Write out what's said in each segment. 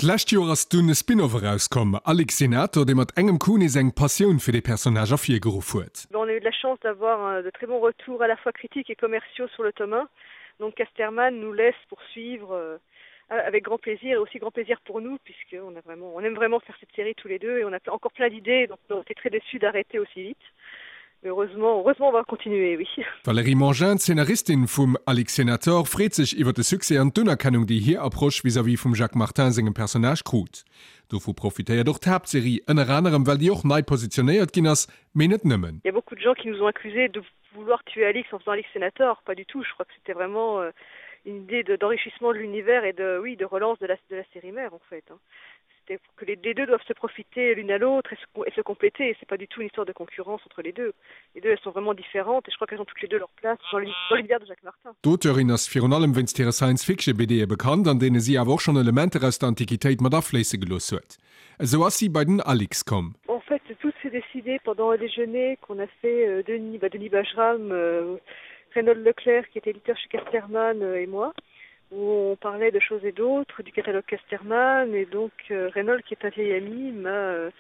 D'lescht Joer ass dunn e Spin-off erauskomm, Alix Senator, dee mat engem Coup nees eng Passioun fir dee Personnage ervirgeruff huet. On a eu de la chance d'avoir de très bons retours à la fois critiques et commerciaux sur le tome 1, donc Casterman nous laisse poursuivre avec grand plaisir et aussi grand plaisir pour nous puisque on a vraiment on aime vraiment faire cette série tous les deux et on a encore plein d'idées donc on était très déçus d'arrêter aussi vite mais heureusement heureusement on va continuer oui. D'Valérie Mangin, d'Szenaristin vum Alix Senator, freet sech iwwer de Succès an d'Unerkennung, déi hir Approche vis-à-vis vum Jacques Martin sengem Personnage krut. Dovu profitéiert och d'Haaptserie, ënner anerem well déi och nei positionéiert ginn ass, mee net nëmmen. Il y a beaucoup de gens qui nous ont accusés de vouloir tuer Alix en faisant Alix Senator, pas du tout, je crois que c'était vraiment euh, une idée d'enrichissement de, de l'univers et de oui de relance de la, de la série mère en fait hein. C'était que les, les deux doivent se profiter l'une à l'autre et se, et se compléter et c'est pas du tout une histoire de concurrence entre les deux. Les deux elles sont vraiment différentes et je crois qu'elles ont toutes les deux leur place dans l'univers de Jacques Martin. D'Auteurin ass virun allem wéinst hire Science-Fiction-BDe bekannt, an deene si awer och schonn Elementer aus der Antiquitéit mat afléisse gelooss huet. Esou ass si bei den Alix komm. En fait, tout s'est décidé pendant un déjeuner qu'on a fait euh, Denis, bah, Denis Bajram, euh, Reynold Leclerc qui était éditeur chez Casterman euh, et moi, où on parlait de choses et d'autres, du catalogue Casterman et donc euh, Reynold qui est un vieil ami m'a euh,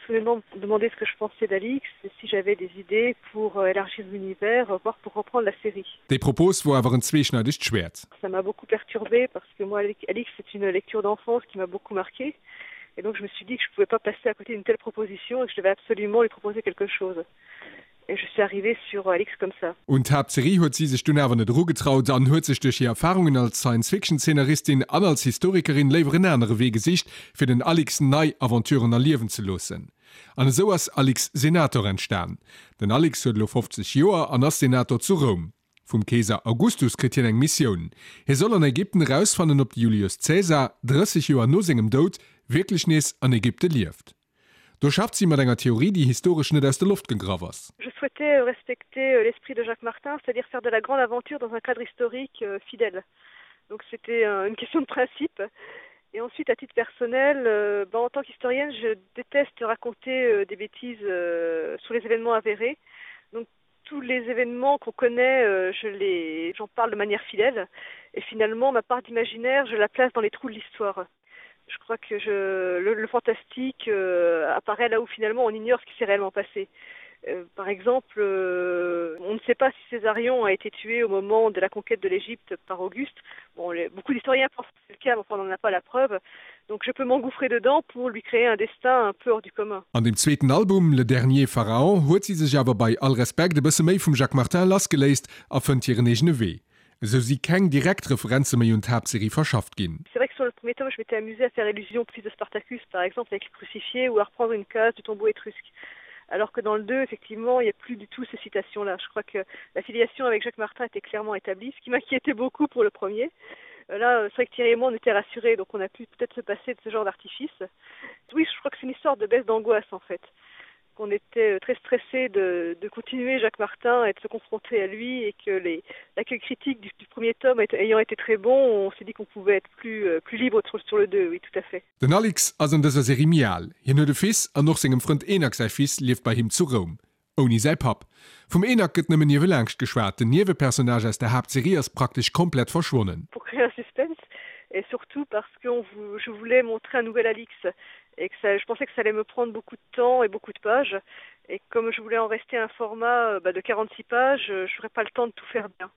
soudainement demandé ce que je pensais d'Alix et si j'avais des idées pour euh, élargir l'univers, voire pour reprendre la série. Déi Propos wor awer en zweeschneidegt Schwäert. Ça m'a beaucoup perturbé parce que moi Alix c'est une lecture d'enfance qui m'a beaucoup marqué et donc je me suis dit que je pouvais pas passer à côté d'une telle proposition et que je devais absolument lui proposer quelque chose et je suis arrivée sur Alix comme ça. Un d'Haaptserie huet si sech dunn awer net erugetraut an huet sech duerch hir Erfarungen als Science-Fiction-Zeenaristin an als Historikerin léiwer en anere Wee gesicht, fir den Alix nei Aventuren erliewen ze loossen. An esou ass Alix Senator entstan. Den Alix huet elo 50 Joer an ass Senator zu Roum. Vum Keeser Augustus kritt hien eng Missioun, Hie soll an Ägypten erausfannen, ob de Julius Caesar, 30 Joer no sengem Doud, wierklech nees an Ägypte lieft. Do schafft si mat enger Theorie, déi historesch net aus der Loft gegraff ass. Je souhaitais respecter l'esprit de Jacques Martin, c'est-à-dire faire de la grande aventure dans un cadre historique fidèle. Donc c'était une question de principe. Et ensuite, à titre personnel, euh, ben, en tant qu'historienne, je déteste raconter euh, des bêtises euh, sur les événements avérés. Donc tous les événements qu'on connaît, euh, je les j'en parle de manière fidèle. Et finalement, ma part d'imaginaire, je la place dans les trous de l'histoire. Je crois que je, le, le fantastique euh, apparaît là où finalement on ignore ce qui s'est réellement passé. Euh, par exemple, euh, on ne sait pas si Césarion a été tué au moment de la conquête de l'Égypte par Auguste. Bon, les, beaucoup d'historiens pensent que c'est le cas, mais enfin, on n'en a pas la preuve. Donc je peux m'engouffrer dedans pour lui créer un destin un peu hors du commun. An dem zweeten Album Le dernier Pharaon huet si sech awer bei all Respekt e bësse méi vum Jacques Martin lassgeléist a fënnt hiren eegene Wee. Esou si keng direkt Referenze méi un d'Haaptserie verschafft ginn. C'est vrai que sur le premier tome, je m'étais amusée à faire allusion au fils de Spartacus, par exemple, avec le crucifié ou à reprendre une case du tombeau étrusque. Alors que dans le 2, effectivement, il n'y a plus du tout ces citations-là. Je crois que la filiation avec Jacques Martin était clairement établie, ce qui m'inquiétait beaucoup pour le premier. Euh, là, c'est vrai que Thierry et moi, on était rassurés, donc on a pu peut-être se passer de ce genre d'artifice. Oui, je crois que c'est une histoire de baisse d'angoisse, en fait qu'on était euh, très stressé de, de continuer Jacques Martin et de se confronter à lui et que l'accueil critique du, du premier tome ayant été très bon, on s'est dit qu'on pouvait être plus, euh, plus libre sur, sur le 2, oui tout à fait. Den Alix ass an dëser Serie méi al. Hien huet e Fils an och sengem Frënd Enak säi Fils lieft bei him zu Roum. Ouni säi Papp. Vum Enak gëtt nëmmen niewelaangscht geschwat, den Niewepersonnage aus der Haaptserie ass praktesch komplett verschwonnen. Pour créer un suspense et surtout parce que on je voulais montrer un nouvel Alix et que ça, je pensais que ça allait me prendre beaucoup de temps et beaucoup de pages et comme je voulais en rester à un format bah, de 46 pages, je n'aurais pas le temps de tout faire bien.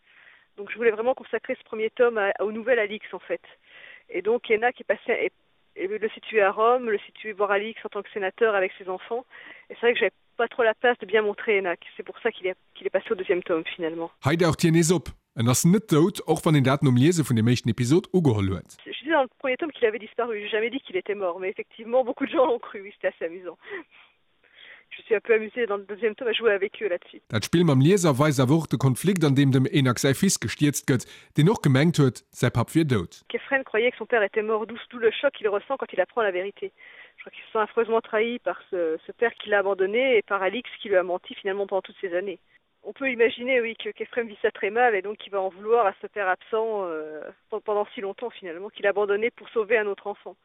Donc je voulais vraiment consacrer ce premier tome à, au nouvel Alix en fait. Et donc Enak est passé est, et le situer à Rome, le situer voir Alix en tant que sénateur avec ses enfants. Et c'est vrai que j'avais pas trop la place de bien montrer Enak. C'est pour ça qu'il est, qu'il est passé au deuxième tome finalement. Hei daucht hien nees op. En ass net dout, och wann een dat nom Liese vun dem éischten Episod ugeholl huet. Je disais dans le premier tome qu'il avait disparu, j'ai jamais dit qu'il était mort, mais effectivement beaucoup de gens l'ont cru, oui c'était assez amusant. Je suis un peu amusée dans le deuxième tome à jouer avec eux là-dessus. Dat Spill mam Lieser weist awer och de Konflikt an deem dem Enak säi Fils gestierzt gëtt, deen och gemengt huet, säi Papp wier dout. Kephren croyait que son père était mort, d'où d'où le choc qu'il ressent quand il apprend la vérité. Je crois qu'il se sent affreusement trahi par ce, ce père qui l'a abandonné et par Alix qui lui a menti finalement pendant toutes ces années. On peut imaginer oui que Kephrem vit ça très mal et donc qu'il va en vouloir à ce père absent euh, pendant si longtemps finalement qu'il a abandonné pour sauver un autre enfant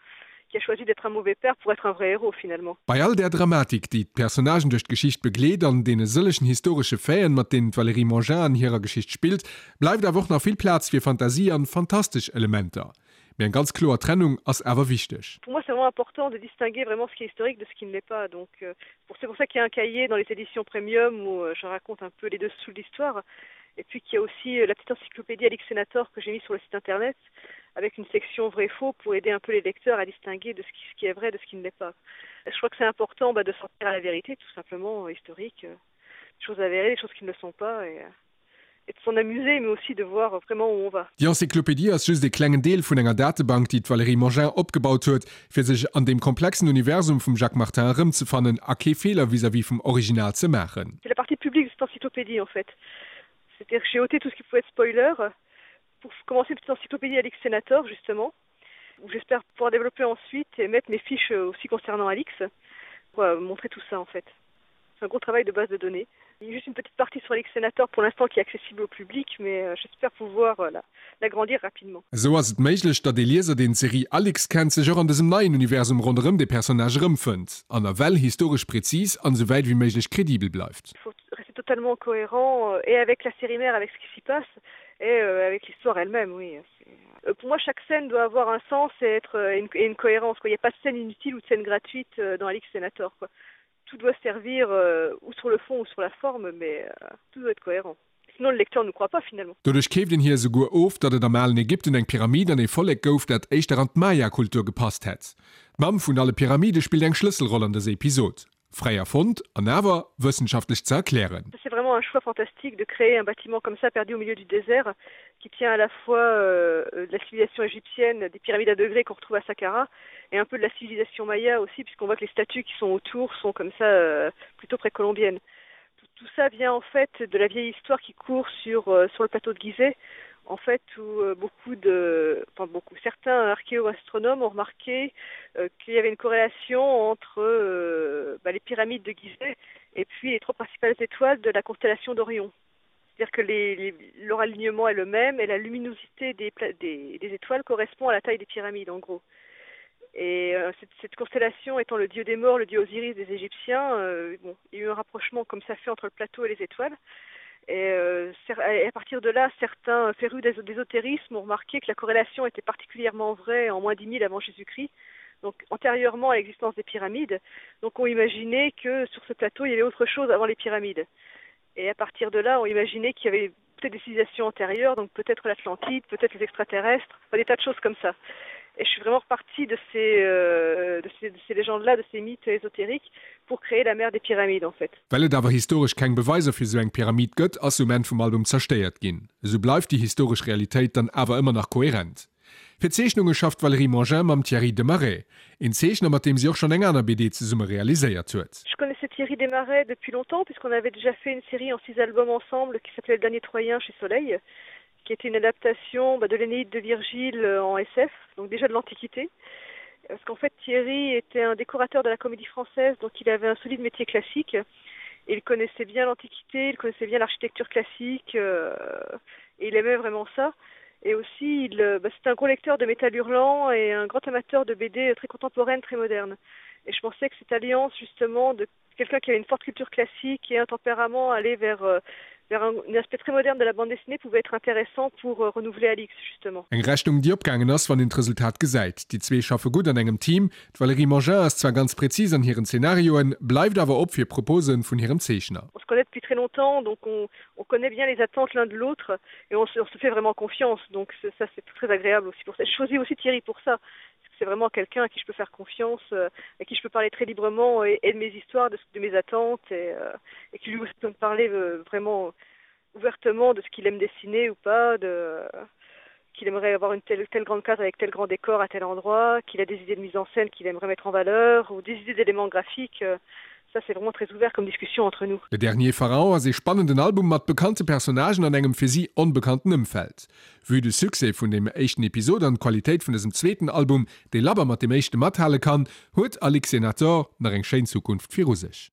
qui a choisi d'être un mauvais père pour être un vrai héros finalement. Bei all där Dramatik, déi d'Personnagen duerch d'Geschicht begleet an deene sëllegen historesche Faiten, mat deenen d'Valérie Mangin an hirer Geschicht spillt, bleift awer och nach vill Plaz fir Fantasie an fantastesch Elementer. Mee eng ganz kloer Trennung ass awer wichteg. Pour moi c'est vraiment important de distinguer vraiment ce qui est historique de ce qui ne l'est pas donc euh, pour c'est pour ça qu'il y a un cahier dans les éditions premium où euh, je raconte un peu les dessous de l'histoire et puis qu'il y a aussi euh, la petite encyclopédie Alix Senator que j'ai mis sur le site internet avec une section vrai faux pour aider un peu les lecteurs à distinguer de ce qui, ce qui est vrai de ce qui ne l'est pas. Je crois que c'est important bah, de sortir à la vérité tout simplement euh, historique euh, des choses avérées, des choses qui ne le sont pas et, euh, et de s'en amuser mais aussi de voir vraiment où on va. Déi Encyclopédie ass just ee klengen Deel vun enger Datebank, déi d'Valérie Mangin opgebaut huet, fir sech an deem komplexen Universum vum Jacques Martin erëmzefannen a kee Feeler vis-à-vis vum Original ze maachen. C'est la partie publique de cette encyclopédie en fait. C'est-à-dire que j'ai ôté tout ce qui pouvait être spoiler pour commencer une petite encyclopédie Alix Senator justement, où j'espère pouvoir développer ensuite et mettre mes fiches aussi concernant Alix pour euh, montrer tout ça en fait. C'est un gros travail de base de données. Il y a juste une petite partie sur Alix Senator pour l'instant qui est accessible au public, mais euh, j'espère pouvoir euh, l'agrandir rapidement. Esou ass et méiglech, datt ee Lieser, deen d'Serie Alix kennt, sech och an dësem neien Universum ronderëm de Personnage erëmfënnt an nawell historesch präzis an esou wäit ewéi méiglech kredibel bleift. Il faut rester totalement cohérent euh, et avec la série mère, avec ce qui s'y passe et euh, avec l'histoire elle-même, oui. Euh, pour moi, chaque scène doit avoir un sens et être euh, une, et une cohérence. Quoi. Il n'y a pas de scène inutile ou de scène gratuite euh, dans Alix Senator. Quoi. Tout doit servir euh, ou sur le fond ou sur la forme, mais euh, tout doit être cohérent. Sinon le lecteur ne croit pas finalement. Doduerch keeft een hir esouguer of, datt et am alen Ägypten eng Pyramid an ee Vollek gouf, dat éischter an d'Maya-Kultur gepasst hätt. D'Mamm vun alle Pyramide spillt eng Schlësselroll an dëser Episod. Fräi erfonnt an awer wëssenschaftlech ze erklären. C'est vraiment un choix fantastique de créer un bâtiment comme ça perdu au milieu du désert qui tient à la fois euh, de la civilisation égyptienne, des pyramides à degrés qu'on retrouve à Saqqara et un peu de la civilisation maya aussi puisqu'on voit que les statues qui sont autour sont comme ça euh, plutôt précolombiennes. Tout, tout ça vient en fait de la vieille histoire qui court sur, euh, sur le plateau de Gizeh en fait où euh, beaucoup de enfin beaucoup certains archéoastronomes ont remarqué euh, qu'il y avait une corrélation entre euh, bah, les pyramides de Gizeh et puis les trois principales étoiles de la constellation d'Orion. C'est-à-dire que les, les, leur alignement est le même et la luminosité des, des, des étoiles correspond à la taille des pyramides en gros. Et euh, cette, cette constellation étant le dieu des morts, le dieu Osiris des Égyptiens, euh, bon, il y a eu un rapprochement comme ça fait entre le plateau et les étoiles. Et, euh, et à partir de là, certains férus d'ésotérisme ont remarqué que la corrélation était particulièrement vraie en moins 10 000 avant Jésus-Christ, donc antérieurement à l'existence des pyramides. Donc on imaginait que sur ce plateau, il y avait autre chose avant les pyramides. Et à partir de là, on imaginait qu'il y avait peut-être des civilisations antérieures, donc peut-être l'Atlantide, peut-être les extraterrestres, enfin, des tas de choses comme ça. Et je suis vraiment repartie de ces, euh, de ces, de ces légendes-là, de ces mythes ésotériques pour créer la mère des pyramides en fait. Well et awer historesch keng Beweiser fir sou eng Pyramid gëtt, ass se um Enn vum Album zerstéiert ginn. Esou bleift déi historesch Realitéit dann awer ëmmer nach kohärent. Fir d'Zeechnunge schafft d'Valérie Mangin mam Thierry Desmarais, een Zeechner mat deem si och schonn eng aner BD zesumme realiséiert huet. Je connaissais Thierry Desmarais depuis longtemps puisqu'on avait déjà fait une série en six albums ensemble qui s'appelait Le dernier Troyen chez Soleil, qui était une adaptation bah, de l'Énéide de Virgile euh, en SF, donc déjà de l'Antiquité. Parce qu'en fait Thierry était un décorateur de la comédie française, donc il avait un solide métier classique. Et il connaissait bien l'Antiquité, il connaissait bien l'architecture classique euh, et il aimait vraiment ça. Et aussi il euh, bah, c'est un gros lecteur de métal hurlant et un grand amateur de BD très contemporaine, très moderne. Et je pensais que cette alliance justement de quelqu'un qui avait une forte culture classique et un tempérament aller vers, euh, vers un, un aspect très moderne de la bande dessinée pouvait être intéressant pour euh, renouveler Alix justement. Eng Rechnung déi opgaangen ass, wann een d'Resultat gesäit. Déi zwee schaffe gutt an engem Team. D'Valérie Mangin ass zwar ganz präzis an hiren Zenarioen, bleift awer op fir Propose vun hirem Zeechner. On se connaît depuis très longtemps, donc on, on connaît bien les attentes l'un de l'autre et on se, on se fait vraiment confiance. Donc ça c'est très agréable aussi pour ça. Je choisis aussi Thierry pour ça. C'est vraiment quelqu'un à qui je peux faire confiance, euh, à qui je peux parler très librement et, et de mes histoires, de, de mes attentes et, euh, et qui lui aussi peut me parler euh, vraiment ouvertement de ce qu'il aime dessiner ou pas, de euh, qu'il aimerait avoir une telle, telle grande case avec tel grand décor à tel endroit, qu'il a des idées de mise en scène qu'il aimerait mettre en valeur ou des idées d'éléments graphiques. Euh, ça c'est vraiment très ouvert comme discussion entre nous. Le dernier Pharaon ass ee spannenden Album mat bekannte Personnagen an engem fir si onbekannten Ëmfeld. Vue de Succès vun deem éischten Episod an d'Qualitéit vun dësem zweeten Album, dee labber mat deem éischte mathale kann, huet Alix Senator nach eng schéin Zukunft viru sech.